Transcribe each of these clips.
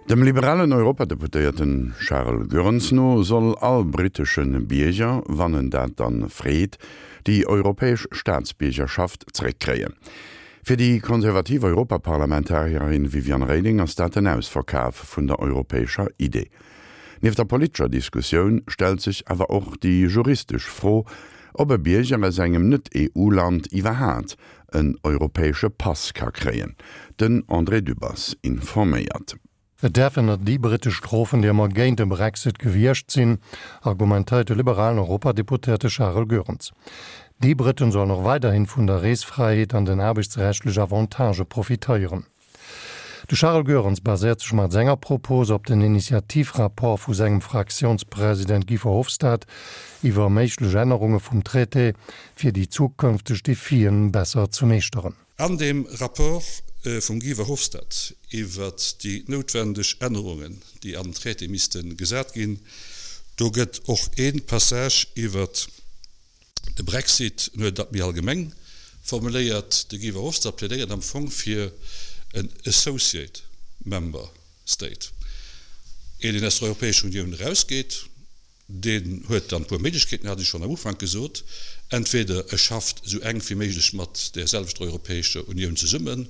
Dem liberalen Europadeputéierten Charles Goerens no soll all brittesche Bierger, wann en dat dann freet, déi europäesch Staatsbiergerschaft zeréckkréien. Fir déi konservativ Europaparlamentarierin Viviane Reding ass dat den Ausverkaf vun der europäescher Idee. Nieft der politescher Diskussioun stellt sech awer och déi juristesch Fro, ob e Bierger aus engem Net-EU-Land iwwerhaat en europäesche Pass ka kréien. Den André Dübbers informéiert. Et däerfen net déi brittesch strofen, déi ëmmer géint de Brexit gewiescht sinn, argumentéiert de liberalen Europadeputéierte Charel Goerens. Déi Britten sollen och weiderhin vun der Reesfräiheet an den aarbechtsrechtlech Avantagë profitéieren. De Charel Goerens baséiert sech mat senger Propos op den Initiativrapport vu sengem Fraktiounspresident Guy Verhofstadt iwwer méiglech Ännerunge vum Traité, fir déi zukënfteg Defien besser ze meeschteren. An deem Rapport vum Guy Verhofstadt iwwert déi noutwendeg Ännerungen, déi an den Traité misste gesat ginn, do gëtt och ee Passage iwwert De Brexit, en huet dat méi allgemeng formuléiert, de Guy Verhofstadt plädéiert am Fong fir en Associate Member State, een deen aus der Europäescher Unioun erausgeet, deen huet dann e puer Méiglechkeeten, hat ech schonn am Ufank gesot, entweder e schafft esou enk wéi méiglech mat där selwechter Europäescher Unioun zesummen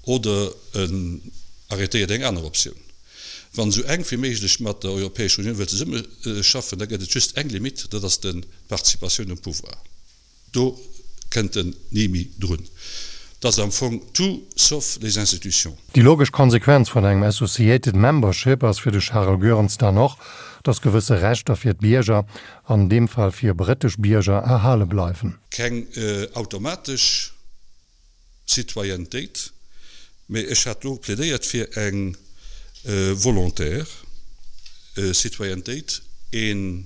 oder en arrêtéiert eng aner Optioun. Wann esou enk wéi méiglech mat der Europäescher Unioun wëllt zesummeschaffen, da gëtt et just eng Limite, dat ass d'Participatioun um Pouvoir. Do kënnt en ni méi drun. Dat ass am Fong tout sauf les institutions. Déi logesch Konsequenz vun engem Associated Membership ass fir de Charel Goerens dann och, datt gewësse Rechter fir d'Bierger, an deem Fall fir brittesch Bierger, erhale bleiwen. Keng automatesch Citoyennetéit, mee ech hat do plädéiert fir eng volontaire Citoyennetéit, ee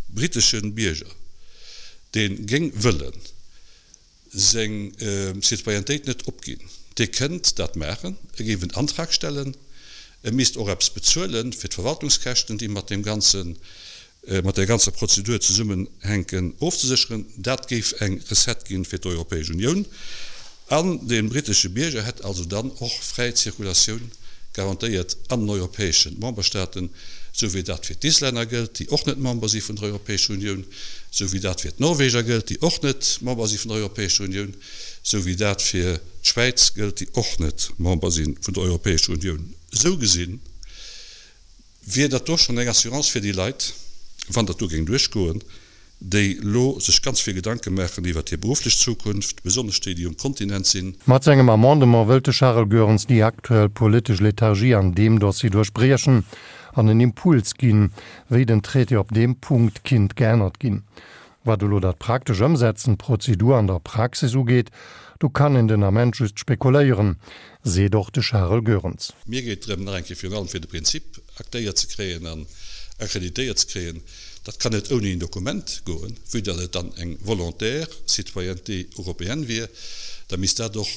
britesche Bierger, dee géing wëlle seng Citoyennetéit net opginn, dee kënnt dat maachen, e géif en Antrag stellen, e misst och eppes bezuelen fir d'Verwaltungskäschten, déi mat deem ganzen mat där ganzer Prozedur zesummenhänken, ofzesécheren. Dat géif eng Recette ginn fir d'Europäesch Unioun. An de britesche Bierger hätt also dann och fräi Zirkulatioun garantéiert an den europäesche Memberstaaten, esou wéi dat fir d'Islänner gëllt, déi och net Member si vun der Europäescher Unioun, esou wéi dat fir d'Norweger gëllt, déi och net Member si vun der Europäescher Unioun, esou wéi dat fir d'Schwäiz gëllt, déi och net Member si vun der Europäescher Unioun. Esou gesinn Wier dat do schonn eng Assurance fir déi Leit, wann dat do géing duerchgoen, déi lo sech ganz vill Gedanke maachen iwwert hir berufflech Zukunft, besonnesch déi, déi um Kontinent sinn? Mat sengem Amendement wëllt de Charel Goerens déi aktuell politesch Lethargie an deem Dossier duerchbriechen an en Impuls ginn, wéi den Traité op deem Punkt kinnt geännert ginn. Wat elo dat praktesch Ëmsetzen, d'Prozedur an der Praxis ugeet, do kann een den Ament just spekuléieren, seet och de Charel Goerens. Mir geet drëm, nach eng Kéier virun allem fir de Prinzip aktéiert ze kréien an akkreditéiert ze kréien. Dat kann net ouni en Dokument goen, vue datt et dann eng volontaire citoyenneté européenne wier. Da misst dat och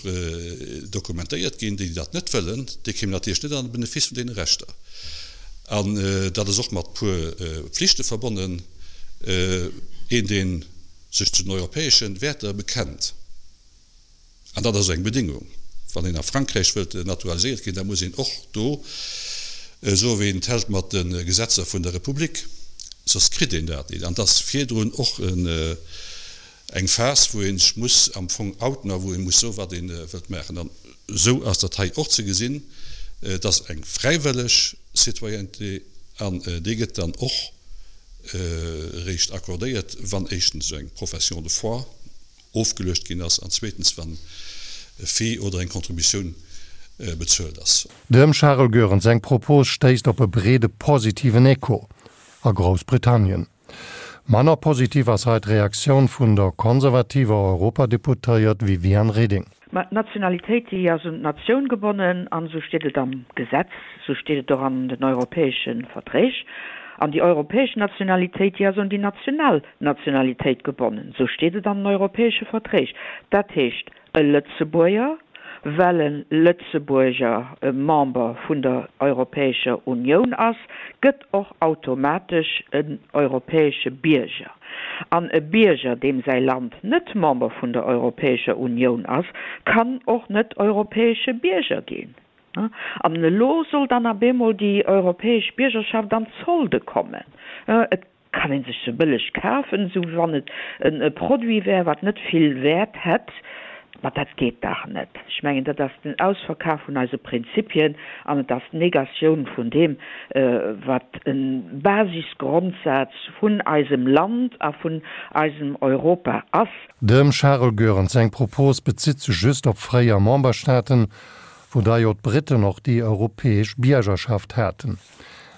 dokumentéiert ginn. Déi, déi dat net wëllen, déi kéimen natierlech net an de Benefice vun deene Rechter. An dat ass och mat puer Pflichte verbonnen. Een, dee sech zu den europäesche Wäerter bekennt, an dat ass eng Bedingung, wann een a Frankräich wëllt naturaliséiert ginn, da muss een och do soen, wéi een et hält mat de Gesetzer vun der Republik, soss kritt een dat nit. An et ass virdrun och eng Phas, wou ee sech muss am Fong outen a wou ee muss soen, wat ee wëllt maachen. An esou ass dat hei och ze gesinn. Et ass eng fräiwëlleg Citoyenneté an déi gëtt dann och eréischt accordéiert, wann éischtens eng Profession de foi ofgeluecht ginn ass an zweetens, wann e Fee oder eng Contributioun bezuelt ass. Dem Charel Goerens seng Propos stéisst op e breede positiven Echo a Groussbritannien. Manner positiv ass hei d'Reaktioun vun der konservativer Europadeputéiert Viviane Reding. Mä d'Nationalitéit, déi ass un d'Natioun gebonnen, an esou steet et am Gesetz, esou steet et och an den europäesche Verträg. An déi europäesch Nationalitéit, déi ass un déi national Nationalitéit gebonnen, esou steet et an den europäesche Verträg. Dat heescht, e Lëtzebuerger, well e Lëtzebuerger Member vun der Europäescher Unioun ass, gëtt och automatesch en europäesche Bierger. An e Bierger, deem säi Land net Member vun der Europäescher Unioun ass, kann och net europäesche Bierger ginn. An elo soll dann ab eemol déi europäesch Biergerschaft an d'Solde kommen. Et kann ee sech se bëlleg kafen, esou wéi wann et e Produit wär, wat net vill Wäert hätt. Ma dat geet dach net. Ech mengen, dat ass den Ausverkaf vun eise Prinzipien an et ass d'Negatioun vun deem, wat e Basisgrondsaz vun eisem Land a vun eisem Europa ass. Dem Charel Goerens seng Propos bezitt sech just op fréier Memberstaaten, wou da jo d'Briten och déi europäesch Biergerschaft haten.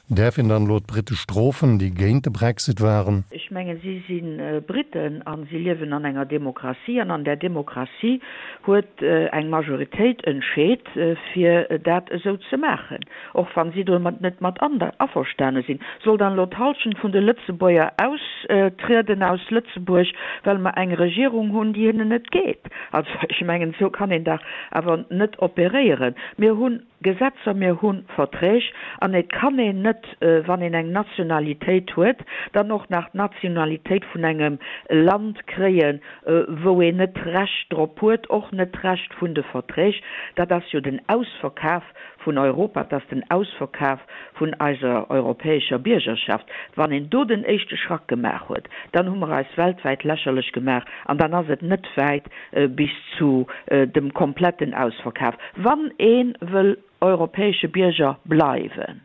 Däerf een dann elo d'Brite strofen, déi géint de Brexit waren? Ech mengen, si si Briten a si liewen an enger Demokratie an an där Demokratie huet eng Majoritéit entscheet, fir dat esou ze maachen, och wa si domat net mat averstane sinn. Soll dann elo d'Hallschent vun de Lëtzebuerger austrieden aus Lëtzebuerg, well mer eng Regierung hunn, déi hinnen net geet? Also ech mengen, esou kann een dach awer net operéieren. Mir hunn Gesetzer, mir hu Verträg an et kann een net, wann een eng Nationalitéit huet, dann och nach d'Nationalitéit vun engem Land kréien, wou een net d'Recht drop huet, och net d'Recht vun de Verträg. Dat ass jo den Ausverkaf vun Europa, dat ass den Ausverkaf vun eiser europäescher Biergerschaft. Wann een do den éischte Schrack gemaach huet, dann hu mer eis weltwäit lächerlech gemaach an dann ass et net wäit bis zu dem kompletten Ausverkaf, wann ee wëll europäesche Bierger bleiwen.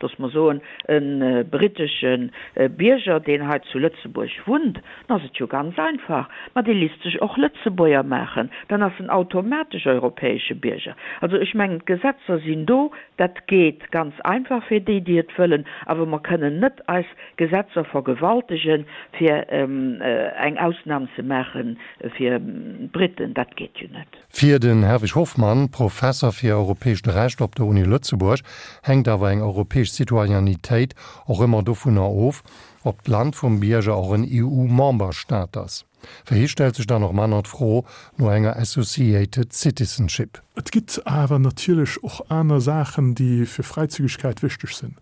Looss mer soen, e brittesche Bierger, deen hei zu Lëtzebuerg wunnt, dann ass et jo ganz einfach, ma dee lisst sech och Lëtzebuerger maachen, dann ass en automatesch europäesche Bierger. Also ech mengen, d'Gesetzer sinn do, dat geet ganz einfach fir déi, déi et wëllen, awer mer kënnen net eis Gesetzer vergewaltegen, fir eng Ausnam ze maache fir d'Briten. Dat geet jo net. Fir den Herwig Hofmann, Professer fir europäescht Recht op der Uni Lëtzebuerg, hänkt awer eng europäesch Citoyennetéit och ëmmer dovunner of, ob d'Land vum Bierger och en EU-Memberstaat ass. Fir hie stellt sech dann och manner d'Fro no enger Associated Citizenship. Et gitt awer natierlech och aner Saachen, déi fir Fräizügigkeit wichteg sinn.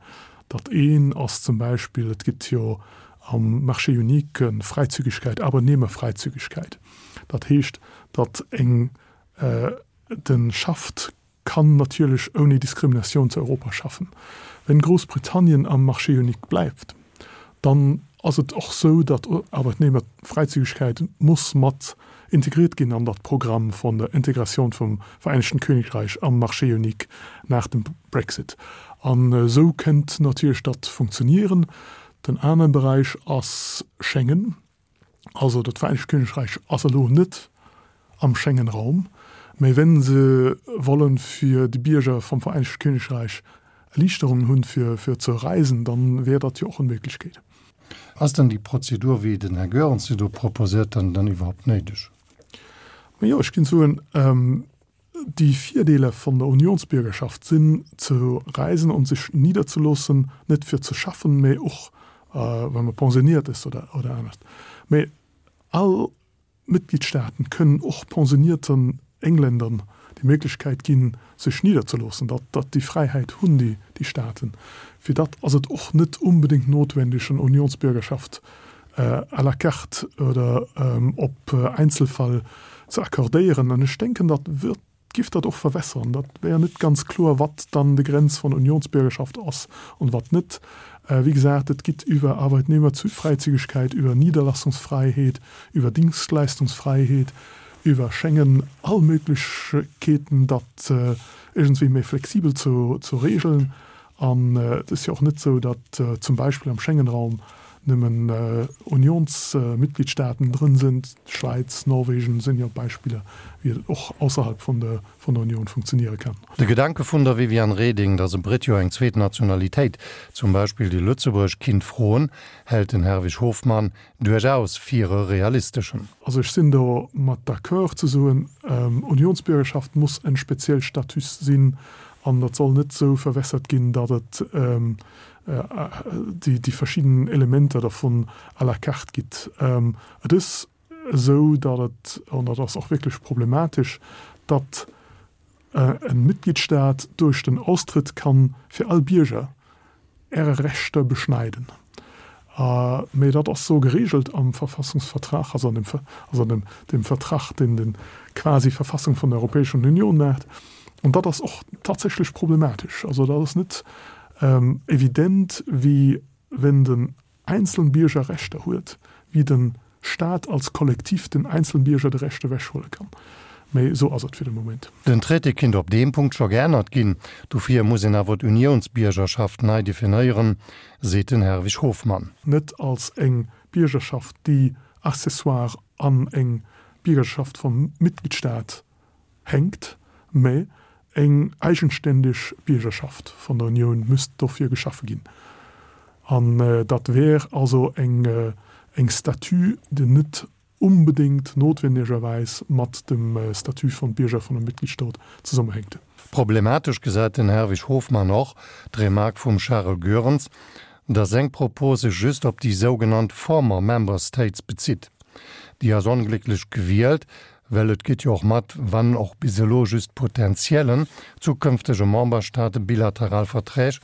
Dat een ass zum Beispill, et gitt jo am Marché unique Fräizügigkeit, Arbeitnehmerfreizügigkeit. Dat heescht, datt eng de schafft, kann natierlech ouni Diskriminatioun zu Europa schaffen. Wenn Groussbritannien am Marché unique bleift, dann ass et och sou, datt Arbeitnehmerfreizügigkeit muss mat integriert ginn an dat Programm von der Integratioun vum Vereinigten Königreich am Marché unique nach dem Brexit. An esou kënnt natierlech dat funktionieren. Den anere Beräich ass Schengen. Also dat Vereenegt Königreich ass elo net am Schengen-Raum, mä wenn se wollen fir déi Bierger vum Vereenegte Königreich Erliichterungen hunn fir fir ze reisen, dann wär dat jo och en Méiglechkeet. Ass dann déi Prozedur, wéi den Här Goerens se do proposéiert, dann dann iwwerhaupt néideg? Majo, ech ginn soen, Déi Virdeeler vun der Unionsbürgerschaft sinn, ze reisen und sech niederzeloossen, net fir ze schaffen, mä och wa man pensioniert ass oder oder anescht. Mä all Mitgliedstaaten kënnen och pensionierten Engländern déi Méiglechkeit ginn, sech niederzeloossen. Dat dat déi Fräiheit hunn déi déi Staaten. Fir dat ass et och net unbedéngt notwendig, en Unionsbürgerschaft à la carte oder op Einzelfall ze accordéieren. An ech denken, dat wird, giff dat och verwässern. Dat wär net ganz kloer, wat dann de Grenz von Unionsbürgerschaft ass an wat net. Wéi gesagt, et gitt iwwer Arbeitnehmerfreizügigkeit, iwwer Niederlassungsfreiheet, iwwer Dienstleistungsfreiheet, iwwer Schengen all Möglichkeeten, dat iergendwéi méi flexibel ze regeln. An et ass jo och net esou, datt zum Beispill am Schengenraum nëmmen Unionsmitgliedstaaten drënn sinn. D'Schwäiz, Norwegen sinn jo Beispiller, wéi et och ausserhalb vun der Union funktioniere kann. De Gedanke vun der Viviane Reding, datt e Britt jo eng zweet Nationalitéit, zum Beispill déi lëtzebuergesch, kinnt froen, hält den Herwig Hofmann duerchaus fir e realisteschen. Also ech sinn do mat d'accord ze soen, Unionsbürgerschaft muss en speziell Status sinn an dat soll net esou verwässert ginn, datt et déi verschidden Elementer dervun à la carte gitt. Et ass esou, datt et, an dat ass och wierklech problematesch, datt e Mitgliedstaat duerch den Austritt kann fir all Bierger Äre Rechter beschneiden. Mee dat ass esou geregelt am Verfassungsvertrag, also an dem, also an dem, dem Vertrag, deen den quasi Verfassung vun der Europäeschen Union maacht. Und dat ass och tatsächlech problematesch. Also dat ass net evident, wéi wenn den einzelnen Bierger Rechter huet, wéi den Staat als Kollektiv den einzelnen Bierger de Recht ewechhuele kann. Mee esou ass et fir de Moment. Den Traité kinnt op deem Punkt scho geännert ginn, dofir muss een awer d'Uniounsbiergerschaft nei definéieren, seet den Herwig Hofmann. Net als eng Biergerschaft, déi accessoire an eng Biergerschaft vum Mitgliedstaat hänkt, mä eng eigenständig Biergerschaft vun der Unioun müsst dofir geschafe ginn. An dat wär also eng eng Statut, déi net unbedéngt notwendigerweis mat dem Statut vum Bierger vun einem Mitgliedstaat zesummehänkt. Problematesch gesäit den Herwig Hofmann och d'Remark vum Charel Goerens, datt seng Propos sech just op déi sougenannt former member states bezitt. Déi ass onglécklech gewielt, well et geet jo och mat, wann och bis elo just potentiellen, zukünftege Memberstaate bilateral Verträg,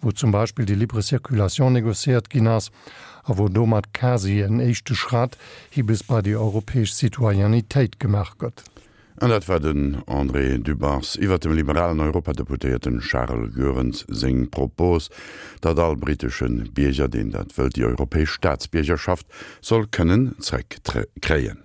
wou zum Beispill déi libre circulation négociéiert ginn ass a wou domat quasi en éischte Schratt hi bis bei déi europäesch Citoyennetéit gemaach gëtt. An dat war den André Dübbers iwwert dem liberalen Europadeputéierten Charles Goerens seng Propos, datt all britesche Bierger, deen dat wëllt, déi europäesch Staatsbiergerschaft soll kënnen zréckkréien.